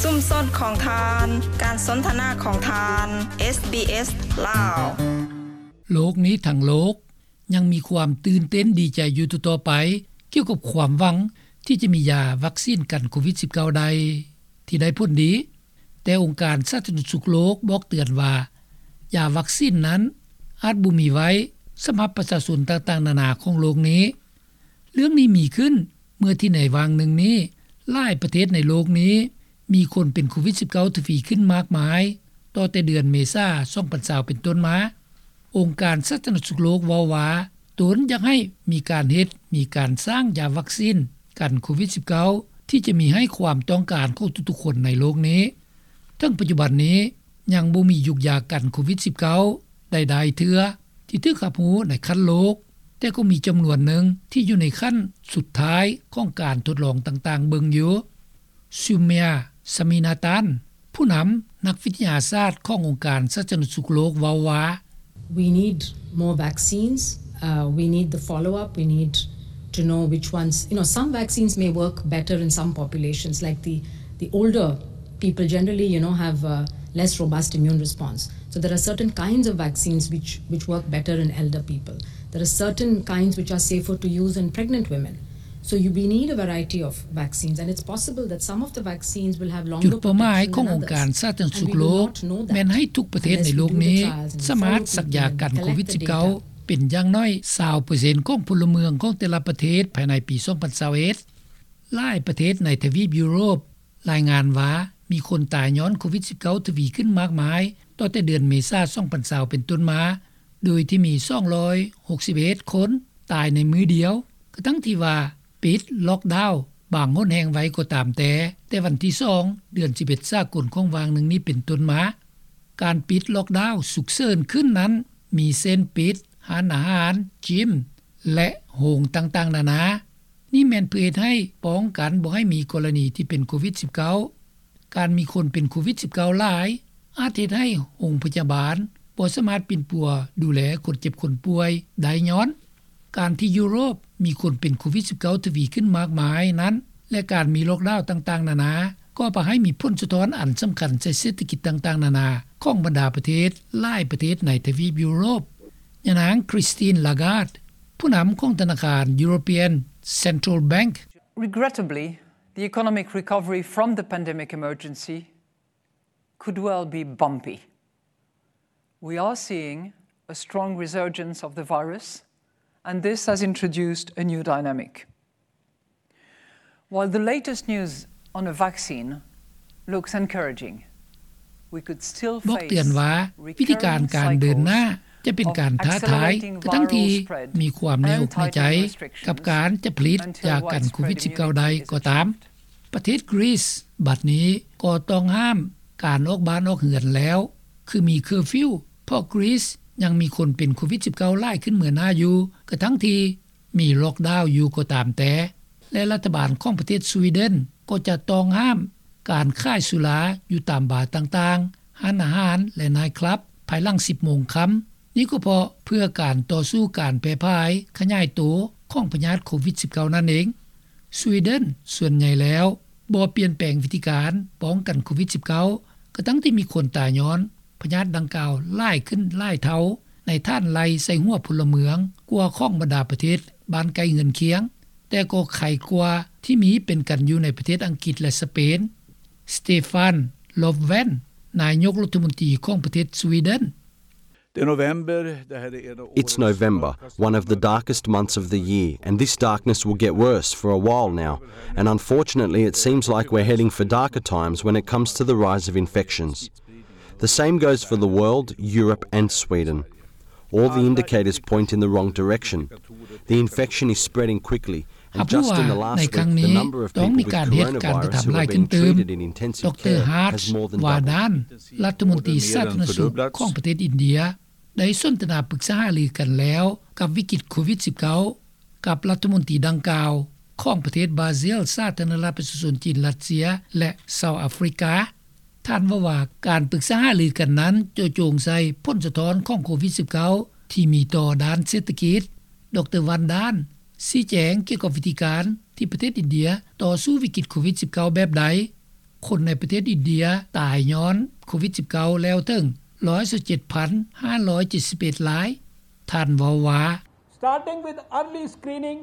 ຊຸມຊົນຂອງທ່ານ, ການສົນທະນາຂອງທ່ານ, ເອສບີເອສ ລາວ. ໂລກນີ້ທັງໂລກຍັງມີຄວາມຕື່ນເຕັ້ນດີໃຈຢູ່ຕໍ່ໆໄປ ກ່ຽວກັບຄວາມຫວັງທີ່ຈະມີຢາວັກຊີນກັນໂຄວິດສິບເກົ້າ ໄດ້ ທີ່ໄດ້ຜົນດີ, ແຕ່ອົງການສາທາລະນະສຸກໂລກບອກເຕືອນວ່າ ຢາວັກຊີນນັ້ນອາດບໍ່ມີໄວ້ສຳລັບປະຊາຊົນຕ່າງໆນານາຂອງໂລກນີ້. ເລື່ອງນີ້ມີຂຶ້ນເມື່ອທີ່ໃນຫວ່າງໜຶ່ງນີ້ ຫຼາຍປະເທດໃນໂລກນີ້ມີຄົນເປັນໂຄວິດສິບເກົ້າ ທະວີຂຶ້ນມາກມາຍ ຕໍ່ແຕ່ເດືອນເມສາ ສອງພັນຊາວ ເປັນຕົ້ນມາ. ອົງການສາທາລະນະສຸກໂລກເວົ້າວ່າ ຕົນຢາກໃຫ້ມີການເຮັດ, ມີການສ້າງຢາວັກຊີນກັນໂຄວິດສິບເກົ້າ ທີ່ຈະມີໃຫ້ຄວາມຕ້ອງການຂອງທຸກໆຄົນໃນໂລກນີ້. ເຖິງປັດຈຸບັນນີ້ຍັງບໍ່ມີຢູກຢາກັນໂຄວິດສິບເກົ້າ ໃດໆເທື່ອທີ່ຖືກຮັບຮູ້ໃນຂັ້ນໂລກ, ແຕ່ກໍມີຈຳນວນໜຶ່ງທີ່ຢູ່ໃນຂັ້ນສຸດທ້າຍຂອງການທົດລອງຕ່າງໆເບິ່ງຢູ່. Soumya Swaminathan ຜູ້ນຳນັກວິທະຍາສາດຂອງອົງການສາທາລະນະສຸກໂລກເວົ້າວ່າ We need more vaccines. Uh, we need the follow-up. We need to know which ones, you know, some vaccines may work better in some populations, like the, the older people generally, you know, have a less robust immune response. So there are certain kinds of vaccines which, which work better in elder people. There are certain kinds which are safer to use in pregnant women. So you, we need a variety of vaccines, and it's possible that some of the vaccines will have longer protection than others. ຈຸດເປົ້າໝາຍຂອງອົງການສາທາລະນະສຸກໂລກ ແມ່ນໃຫ້ທຸກປະເທດໃນໂລກນີ້ສາມາດສັກຢາກັນໂຄວິດສິບເກົ້າ ເປັນຢ່າງໜ້ອຍຊາວເປີເຊັນຂອງພົນລະເມືອງຂອງແຕ່ລະປະເທດພາຍໃນປີສອງພັນຊາວເອັດ. ຫຼາຍປະເທດໃນທະວີບຢູໂຣບລາຍງານວ່າ ມີຄົນຕາຍຍ້ອນໂຄວິດສິບເກົ້າ ທະວີຂຶ້ນມາກມາຍ ຕໍ່ແຕ່ເດືອນເມສາ ສອງພັນຊາວ ເປັນຕົ້ນມາ, ໂດຍທີ່ມີສອງຮ້ອຍຫົກສິບເອັດຄົນຕາຍໃນມື້ດຽວ, ກະທັ່ງທີ່ວ່າປິດລັອກດາວບາງຫົນແຫ່ງໄວ້ກໍຕາມແຕ່, ແຕ່ວັນທີສອງ ເດືອນສິບເອັດສາກົນຂອງຫວ່າງໜຶ່ງນີ້ເປັນຕົ້ນມາ. ການປິດລັອກດາວສຸກເສີນຂຶ້ນນັ້ນ ມີເຊັ່ນປິດຮ້ານອາຫານ, ຈິມ ແລະ ໂຮງຕ່າງໆນານາ. ນີ້ແມ່ນເພື່ອເຮັດໃຫ້ປ້ອງກັນບໍ່ໃຫ້ມີກໍລະນີທີ່ເປັນໂຄວິດສິບເກົ້າ. ການມີຄົນເປັນໂຄວິດສິບເກົ້າຫຼາຍ ອາດເຮັດໃຫ້ໂຮງພະຍາບານບໍ່ສາມາດປິ່ນປົວດູແລຄົນເຈັບຄົນປ່ວຍໄດ້ຍ້ອນ ການທີ່ຢູໂຣບມີຄົນເປັນໂຄວິດສິບເກົ້າ ທະວີຂຶ້ນມາກມາຍນັ້ນ ແລະ ການມີລັອກດາວຕ່າງໆນານາ ກໍພາໃຫ້ມີຜົນສະທ້ອນອັນສຳຄັນໃສ່ເສດຖະກິດຕ່າງໆນານາຂອງບັນດາປະເທດຫຼາຍປະເທດໃນທະວີບຢູໂຣບ. ຍານາງ Christine Lagarde ຜູ້ນຳຂອງທະນາຄານ European Central Bank. Regrettably, the economic recovery from the pandemic emergency could well be bumpy. We are seeing a strong resurgence of the virus, and this has introduced a new dynamic. While the latest news on a vaccine looks encouraging, we could still face recurring cycles of accelerating viral spread and tightening restrictions. ບອກເຕືອນວ່າ ວິທີການການເດີນໜ້າຈະເປັນການທ້າທາຍ ກະທັ່ງທີ່ມີຄວາມໃນອົກໃນໃຈ ກັບການຈະຜະລິດຢາກັນໂຄວິດສິບເກົ້າໄດ້ກໍຕາມ. ປະເທດກຣີສບັດນີ້ກໍຕ້ອງຫ້າມການອອກບ້ານອອກເຮືອນແລ້ວ ຄືມີເຄີຟິວ ເພາະກຣີສຍັງມີຄົນເປັນໂຄວິດສິບເກົ້າຫຼາຍຂຶ້ນເໝືອໜ້າຢູ່ ກະທັ່ງທີ່ມີລັອກດາວຢູ່ກໍຕາມແຕ່ ແລະ ລັດຖະບານຂອງປະເທດສະວີເດັນກໍຈະຕ້ອງຫ້າມການຂາຍສຸລາຢູ່ຕາມບາຕ່າງໆ, ຮ້ານອາຫານ ແລະ ໄນທ໌ຄລັບ ພາຍຫຼັງສິບໂມງຄ່ຳ. ນີ້ກໍເພາະເພື່ອການຕໍ່ສູ້ການແຜ່ຜາຍຂະຫຍາຍໂຕຂອງພະຍາດໂຄວິດສິບເກົ້ານັ້ນເອງ. ສະວີເດັນສ່ວນໃຫຍ່ແລ້ວບໍ່ປ່ຽນແປງວິທີການປ້ອງກັນໂຄວິດສິບເກົ້າ ກະທັ່ງທີ່ມີຄົນຕາຍຍ້ອນພະຍາດດັ່ງກ່າວຫຼາຍຂຶ້ນຫຼາຍເທົ່າ ໃນຖານໄລ່ໃສ່ຫົວພົນລະເມືອງກວ່າຂອງບັນດາປະເທດບ້ານໃກ້ເຮືອນຄຽງ, ແຕ່ກໍໄຄກວ່າທີ່ມີເປັນກັນຢູ່ໃນປະເທດອັງກິດ ແລະ ສະເປນ. Stefan Löfven ນາຍົກລັດຖະມົນຕີຂອງປະເທດສະວີເດັນ. It's November, one of the darkest months of the year, and this darkness will get worse for a while now. And unfortunately, it seems like we're heading for darker times when it comes to the rise of infections. The same goes for the world, Europe and Sweden. All the indicators point in the wrong direction. The infection is spreading quickly, and just in the last week, the number of people with coronavirus who have been treated in intensive care has more than doubled. ລັດຖະມົນຕີສາທາລະນະສຸກຂອງປະເທດອິນເດຍ ໄດ້ສົນທະນາປຶກສາຫາລືກັນແລ້ວກັບວິກິດໂຄວິດສິບເກົ້າ ກັບລັດຖະມົນຕີດັ່ງກ່າວຂອງປະເທດບຣາຊິລ, ສາທາລະນະລັດປະຊາຊົນຈີນ, ຣັດເຊຍ ແລະ ເຊົາອາຟຣິກາ. ທ່ານເວົ້າວ່າ ການປຶກສາຫາລືກັນນັ້ນເຈາະຈົງໃສ່ຜົນສະທ້ອນຂອງໂຄວິດສິບເກົ້າ ທີ່ມີຕໍ່ດ້ານເສດຖະກິດ. ດຣ ວັນດານ ຊີ້ແຈງກ່ຽວກັບວິທີການທີ່ປະເທດອິນເດຍຕໍ່ສູ້ວິກິດໂຄວິດສິບເກົ້າແບບໃດ. ຄົນໃນປະເທດອິນເດຍຕາຍຍ້ອນໂຄວິດສິບເກົ້າແລ້ວເຖິງຮ້ອຍຊາວເຈັດພັນຫ້າຮ້ອຍເຈັດສິບເອັດລາຍ. ທ່ານເວົ້າວ່າ Starting with early screening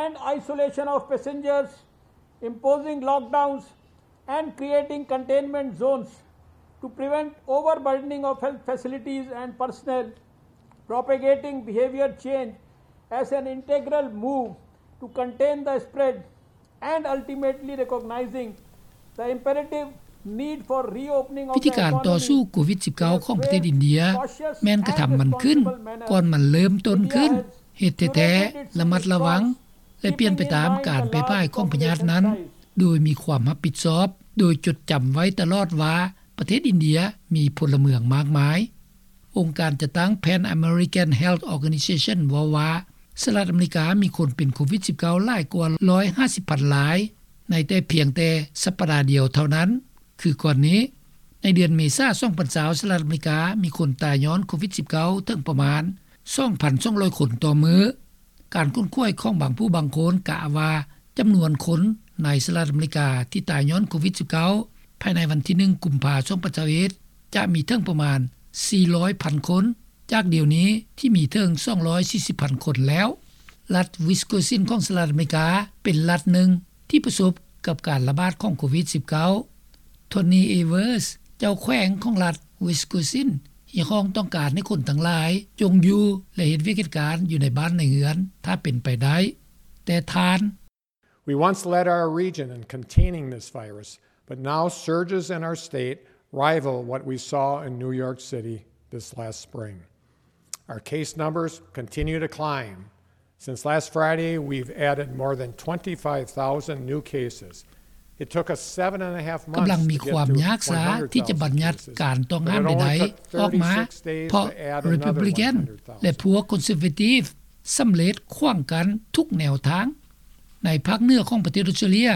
and isolation of passengers, imposing lockdowns and creating containment zones to prevent overburdening of health facilities and personnel, propagating behavior change as an integral move to contain the spread, and ultimately recognizing the imperative need for reopening of the economy ວິທີການຕໍ່ສູ້ໂຄວິດສິບເກົ້າຂອງປະເທດອິນເດຍ ແມ່ນກະທຳມັນຂຶ້ນກ່ອນມັນເລີ່ມຕົ້ນຂຶ້ນ, ເຮັດແທ້ໆ ລະມັດລະວັງ ແລະ ປ່ຽນໄປຕາມການແຜ່ພາຍຂອງພະຍາດນັ້ນ ໂດຍມີຄວາມຮັບຜິດຊອບ, ໂດຍຈົດຈຳໄວ້ຕະຫຼອດວ່າປະເທດອິນເດຍມີພົນລະເມືອງມາກມາຍ. ອົງການຈັດຕັ້ງ Pan American Health Organization ເວົ້າວ່າ ສະຫະລັດອາເມລິກາມີຄົນເປັນໂຄວິດສິບເກົ້າຫຼາຍກວ່າຮ້ອຍຫ້າສິບພັນລາຍ ໃນແຕ່ພຽງແຕ່ສັບປະດາດຽວເທົ່ານັ້ນ. ຄືກ່ອນນີ້ ໃນເດືອນເມສາ ສອງພັນຊາວ ສະຫະລັດອາເມລິກາມີຄົນຕາຍຍ້ອນໂຄວິດສິບເກົ້າເຖິງປະມານສອງພັນສອງຮ້ອຍຄົນຕໍ່ມື້. ການຄົ້ນຄວ້າຂອງບາງຜູ້ບາງຄົນກະວ່າ ຈຳນວນຄົນໃນສະຫະລັດອາເມລິກາທີ່ຕາຍຍ້ອນໂຄວິດສິບເກົ້າ ພາຍໃນວັນທີໜຶ່ງ ກຸມພາ ສອງພັນຊາວເອັດ ຈະມີເຖິງປະມານສີ່ຮ້ອຍພັນຄົນ ຈາກດຽວນີ້ທີ່ມີເຖິງສອງຮ້ອຍສີ່ສິບພັນຄົນແລ້ວ. ລັດ Wisconsin ຂອງສະຫະລັດອາເມລິກາ ເປັນລັດໜຶ່ງທີ່ປະສົບກັບການລະບາດຂອງໂຄວິດສິບເກົ້າ. Tony Evers ເຈົ້າແຂວງຂອງລັດ Wisconsin ຮຽກຮ້ອງຕ້ອງການໃຫ້ຄົນທັງຫຼາຍຈົ່ງຢູ່ ແລະ ເຮັດວຽກເຮັດການຢູ່ໃນບ້ານໃນເຮືອນ ຖ້າເປັນໄປໄດ້. ແຕ່ທ່ານ We once led our region in containing this virus, but now surges in our state rival what we saw in New York City this last spring. Our case numbers continue to climb. Since last Friday, we've added more than twenty-five thousand new cases. It took us seven and a half months to get to one hundred thousand cases, but it only took thirty-six days to add another one hundred thousand. ກຳລັງມີຄວາມຍາກຊາທີ່ຈະບັນຍັດການຕ້ອງຫ້າມໃດໆ ອອກມາ ເພາະ Republican ແລະ ພວກ Conservative ສຳເລັດຂວາງກັນທຸກແນວທາງ. ໃນພາກເໜືອຂອງປະເທດອົດສະຕຣາເລຍ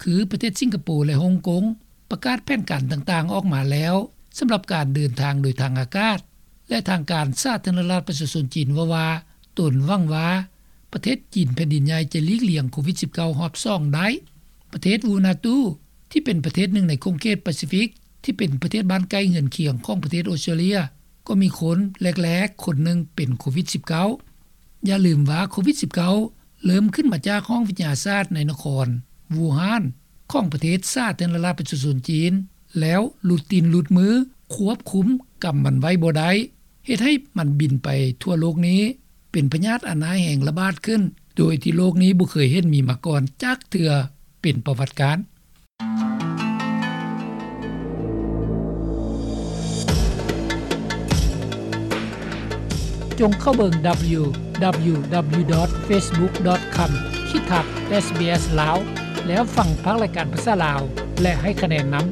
ຄືປະເທດສິງກະໂປ ແລະ ຮົງກົງ ປະກາດແຜນການຕ່າງໆອອກມາແລ້ວ ສຳລັບການເດີນທາງໂດຍທາງອາກາດ ແລະ ທາງການສາທາລະນະລັດປະຊາຊົນຈີນເວົ້າວ່າ ຕົນຫວັງວ່າປະເທດຈີນແຜ່ນດິນໃຫຍ່ຈະຫຼີກລ່ຽງໂຄວິດສິບເກົ້າຮອບສອງໄດ້. ປະເທດ Vanuatu ທີ່ເປັນປະເທດໜຶ່ງໃນຂົງເຂດປາຊີຟິກ ທີ່ເປັນປະເທດບ້ານໃກ້ເຮືອນຄຽງຂອງປະເທດອົດສະຕຣາເລຍ ກໍມີຄົນແລກໆຄົນໜຶ່ງເປັນໂຄວິດສິບເກົ້າ. ຢ່າລືມວ່າໂຄວິດສິບເກົ້າເລີ່ມຂຶ້ນມາຈາກຫ້ອງວິທະຍາສາດໃນນະຄອນ Wuhan ຂອງປະເທດສາທາລະນະລັດປະຊາຊົນຈີນ ແລ້ວຫຼຸດຕີນຫຼຸດມື ຄວບຄຸມກຳມັນໄວ້ບໍ່ໄດ້ ເຮັດໃຫ້ມັນບິນໄປທົ່ວໂລກນີ້ ເປັນພະຍາດອັນຮ້າຍແຮງລະບາດຂຶ້ນ ໂດຍທີ່ໂລກນີ້ບໍ່ເຄີຍເຫັນມີມາກ່ອນຈັກເທື່ອເປັນປະຫວັດການ. ຈົ່ງເຂົ້າເບິ່ງ www.facebook.com ຂີດທັບ SBS ລາວ ແລ້ວຟັງພາກລາຍການພາສາລາວ ແລະ ໃຫ້ຄະແນນນຳ.